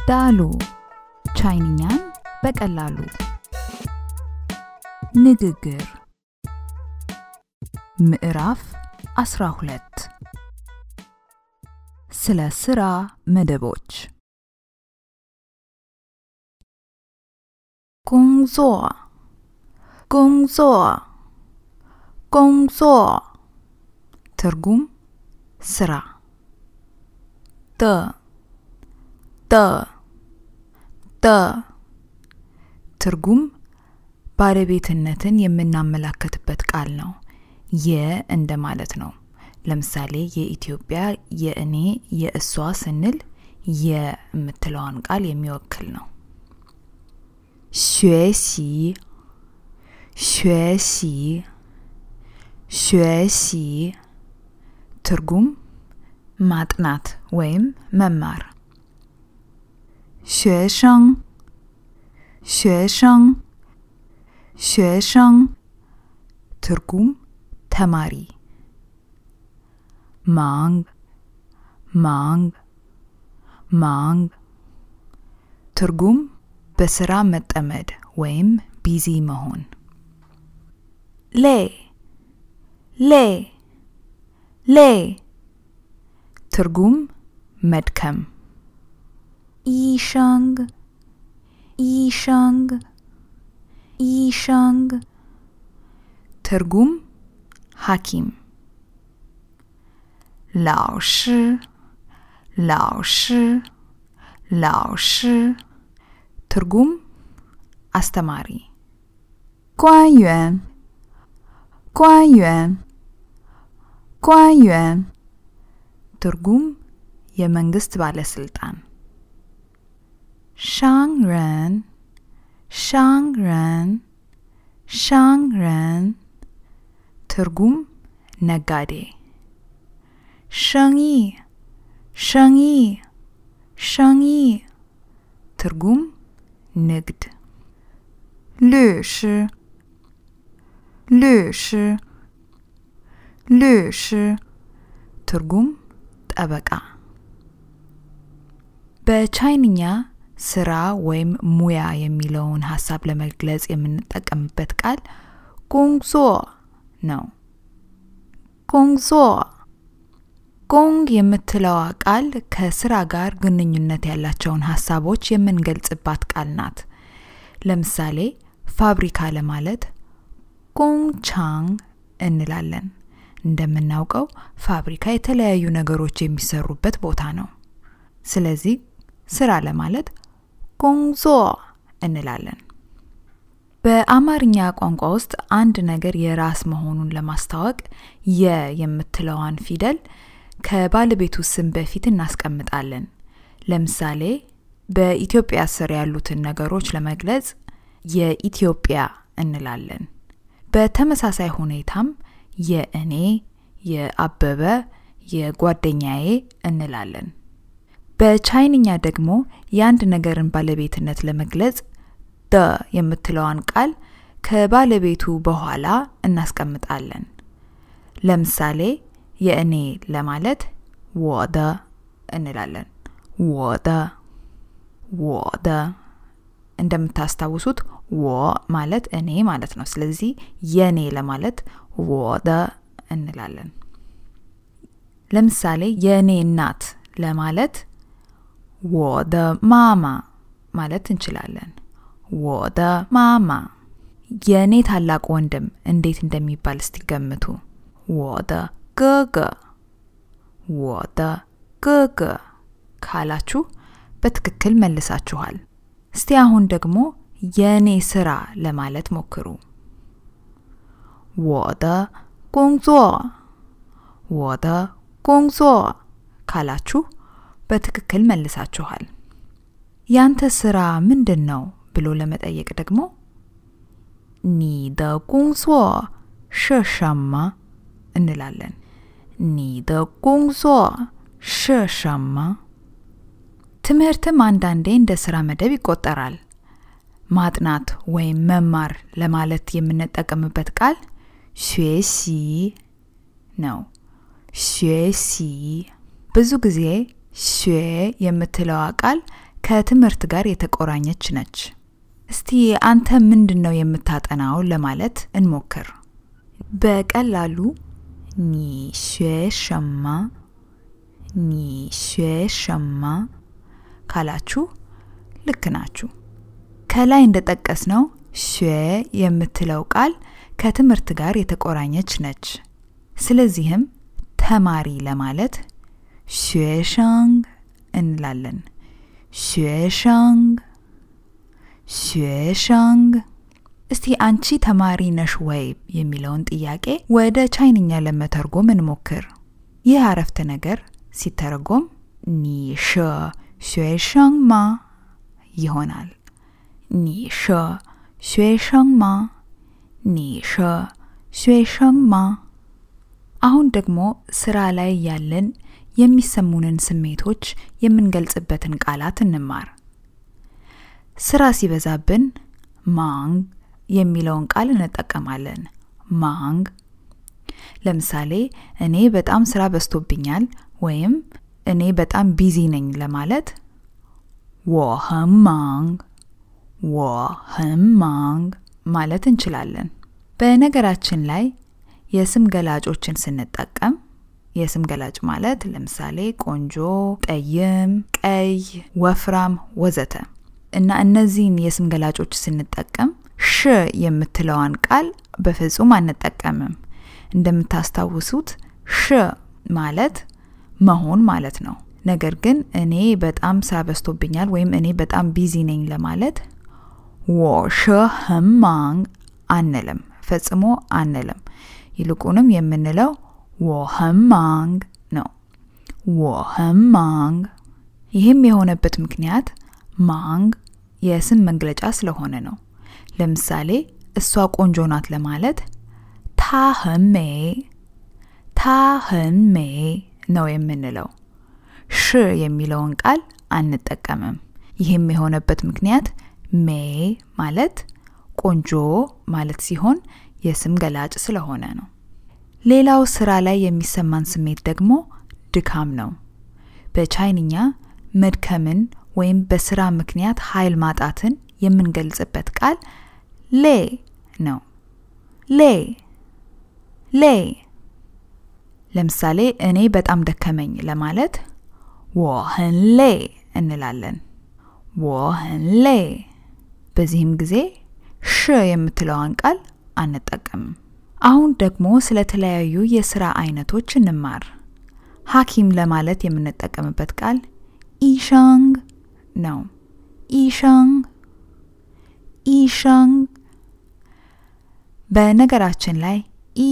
ዳሉ ቻይንኛን በቀላሉ ንግግር ምዕራፍ 12 ስለ ስራ መደቦች工作 ትርጉም ስራ ደ ትርጉም ባለቤትነትን የምናመላክትበት ቃል ነው እንደማለት ነው ለምሳሌ የኢትዮጵያ የእኔ የእሷ ስንል የምትለዋን ቃል የሚወክል ነው 学习 ትርጉም ማጥናት ወይም መማር 学生 ትርጉም ተማሪ ማንግ ትርጉም በስራ መጠመድ ወይም ቢዚ መሆን ሌ ትርጉም መድከም ኢሻንግ ትርጉም ሐኪም ላውሽ ትርጉም አስተማሪ 官员 ትርጉም የመንግስት ባለስልጣን 商人 ትርጉም ነጋዴ 生意 ትርጉም ንግድ 律师 ትርጉም ጠበቃ በቻይንኛ ስራ ወይም ሙያ የሚለውን ሐሳብ ለመግለጽ የምንጠቀምበት ቃል 工作 ነው 工作 工 የምትለዋ ቃል ከስራ ጋር ግንኙነት ያላቸውን ሐሳቦች የምንገልጽባት ቃል ናት ለምሳሌ ፋብሪካ ለማለት 工厂 እንላለን እንደምናውቀው ፋብሪካ የተለያዩ ነገሮች የሚሰሩበት ቦታ ነው ስለዚህ ስራ ለማለት 工作 እንላለን በአማርኛ ቋንቋ ውስጥ አንድ ነገር የራስ መሆኑን ለማስተዋወቅ የምትለዋን ፊደል ከባለቤቱ ስም በፊት እናስቀምጣለን ለምሳሌ በኢትዮጵያ ስር ያሉትን ነገሮች ለመግለጽ የኢትዮጵያ እንላለን በተመሳሳይ ሁኔታም የእኔ የአበበ የጓደኛዬ እንላለን በቻይንኛ ደግሞ የአንድ ነገርን ባለቤትነት ለመግለጽ ደ የምትለዋን ቃል ከባለቤቱ በኋላ እናስቀምጣለን ለምሳሌ የእኔ ለማለት 我的 እንላለን 我的 እንደምታስታውሱት 我ማለት እኔ ማለት ነው ስለዚህ የኔ ለማለት 我的 እንላለን ለምሳሌ የኔ እናት ለማለት 我的妈妈 ማለት እንችላለን 我的妈妈 የኔ ታላቅ ወንድም እንዴት እንደሚባል እስቲ ገምቱ 我的哥哥 ካላችሁ በትክክል መልሳችኋል እስቲ አሁን ደግሞ የኔ ስራ ለማለት ሞክሩ 我的工作 ካላችሁ በትክክል መልሳችኋል ያንተ ስራ ምንድነው ብሎ ለመጠየቅ ደግሞ 你的工作是什么 እንላለን 你的工作是什么 ትምህርትም አንዳንዴ እንደ ስራ መደብ ይቆጠራል ማጥናት ወይም መማር ለማለት የምንጠቀምበት ቃል 学习 ነው 学习 ብዙ ጊዜ 学 የምትለዋ ቃል ከትምህርት ጋር የተቆራኘች ነች። እስቲ አንተ ምንድነው የምታጠናው ለማለት እንሞክር። በቀላሉ 你学什么 你学什么 ካላችሁ ልክ ናችሁ። ከላይ እንደጠቀስነው 学 የምትለው ቃል ከትምህርት ጋር የተቆራኘች ነች። ስለዚህም ተማሪ ለማለት 学生 እንላለን። 学生 学生 እስቲ አንቺ ተማሪ ነሽ ወይ የሚለውን ጥያቄ ወደ ቻይንኛ ለመተርጎም እንሞክር። ይህ አረፍተ ነገር ሲተረጎም 你是学生吗 ይሆናል። 你是学生吗 你是学生吗 አሁን ደግሞ ስራ ላይ ያለን የሚሰሙንን ስሜቶች የምንገልጽበትን ቃላት እንማር። ስራ ሲበዛብን ማንግ የሚለውን ቃል እንጠቀማለን። ማንግ ለምሳሌ እኔ በጣም ስራ በዝቶብኛል ወይም እኔ በጣም ቢዚ ነኝ ለማለት 我很忙 我很忙ማለት እንችላለን። በነገራችን ላይ የስም ገላጮችን ስንጠቀም የስም ገላጭ ማለት ለምሳሌ ቆንጆ፣ ጠይም፣ ቀይ፣ ወፍራም ወዘተ እና እነዚህን የስም ገላጮች ስንጠቀም ሽ የምትለዋን ቃል በፍጹም አንጠቀምም። እንደምታስታውሱት ሽ ማለት መሆን ማለት ነው። ነገር ግን እኔ በጣም ስራ በዝቶብኛል ወይም እኔ በጣም ቢዚ ነኝ ለማለት 我是很忙 አንልም፣ ፈጽሞ አንልም። ይልቁንም የምንለው 我很忙 ነው። 我很忙 ይህም የሆነበት ምክንያት ማንግ የስም መግለጫ ስለሆነ ነው። ለምሳሌ እሷ ቆንጆ ናት ለማለት 她很美 她很美 ነው የምንለው። ሽ የሚለውን ቃል አንጠቀምም። ይህም የሆነበት ምክንያት ሜ ማለት ቆንጆ ማለት ሲሆን የስም ገላጭ ስለሆነ ነው። ሌላው ስራ ላይ የሚሰማን ስሜት ደግሞ ድካም ነው። በቻይንኛ መድከምን ወይም በስራ ምክንያት ኃይል ማጣትን የምንገልጽበት ቃል ሌ ነው። ሌ ሌ ለምሳሌ እኔ በጣም ደከመኝ ለማለት 我很累 እንላለን። 我很累 በዚህም ጊዜ ሽ የምትለዋን ቃል አንጠቀምም። አሁን ደግሞ ስለተለያዩ የሥራ አይነቶች እንማር። ሐኪም ለማለት የምንጠቀምበት ቃል ኢሻንግ ነው። ኢሻንግ ኢሻንግ በነገራችን ላይ ኢ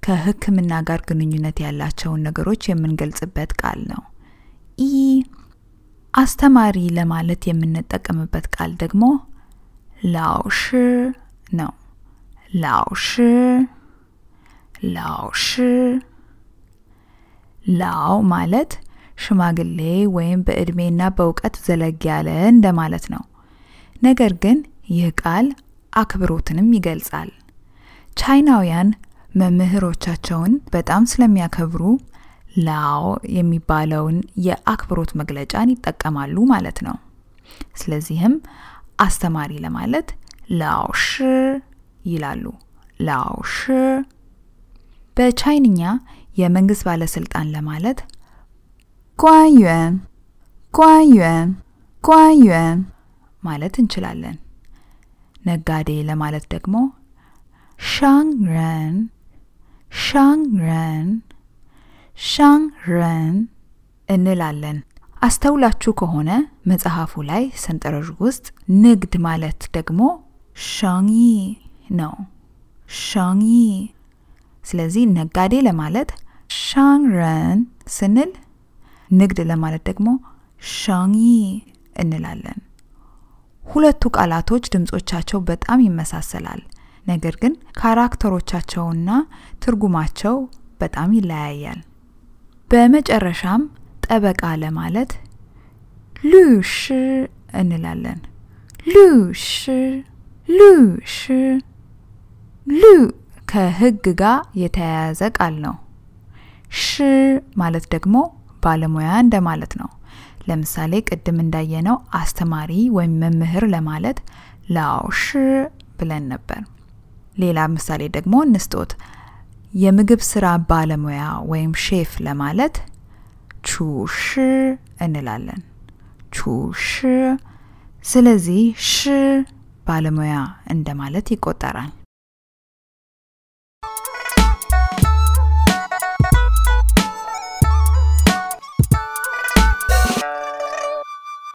ከሕክምና ጋር ግንኙነት ያላቸውን ነገሮች የምንገልጽበት ቃል ነው። ኢ አስተማሪ ለማለት የምንጠቀምበት ቃል ደግሞ ላውሽ ነው። ላውሽ ላውሽ ላው ማለት ሽማግሌ ወይም በእድሜና በእውቀት ዘለግ ያለ እንደማለት ነው። ነገር ግን ይህ ቃል አክብሮትንም ይገልጻል። ቻይናውያን መምህሮቻቸውን በጣም ስለሚያከብሩ ላው የሚባለውን የአክብሮት መግለጫን ይጠቀማሉ ማለት ነው። ስለዚህም አስተማሪ ለማለት ላውሽ ይላሉ። ላውሽ በቻይንኛ የመንግስት ባለስልጣን ለማለት ጓንዩን ጓንዩን ጓንዩን ማለት እንችላለን። ነጋዴ ለማለት ደግሞ ሻንግረን ሻንግረን ሻንግረን እንላለን። አስተውላችሁ ከሆነ መጽሐፉ ላይ ሰንጠረዥ ውስጥ ንግድ ማለት ደግሞ ሻንጊ ነው። ሻንጊ ስለዚህ ነጋዴ ለማለት ሻንግረን ስንል ንግድ ለማለት ደግሞ ሻንጊ እንላለን። ሁለቱ ቃላቶች ድምጾቻቸው በጣም ይመሳሰላል። ነገር ግን ካራክተሮቻቸውና ትርጉማቸው በጣም ይለያያል። በመጨረሻም ጠበቃ ለማለት ሉሽ እንላለን። ሉሽ ሉሽ ሉ ከህግ ጋር የተያያዘ ቃል ነው። ሽ ማለት ደግሞ ባለሙያ እንደማለት ነው። ለምሳሌ ቅድም እንዳየነው አስተማሪ ወይም መምህር ለማለት ላውሽ ብለን ነበር ሌላ ምሳሌ ደግሞ እንስጦት የምግብ ስራ ባለሙያ ወይም ሼፍ ለማለት ቹሽ እንላለን ቹሽ ስለዚህ ሽ ባለሙያ እንደማለት ይቆጠራል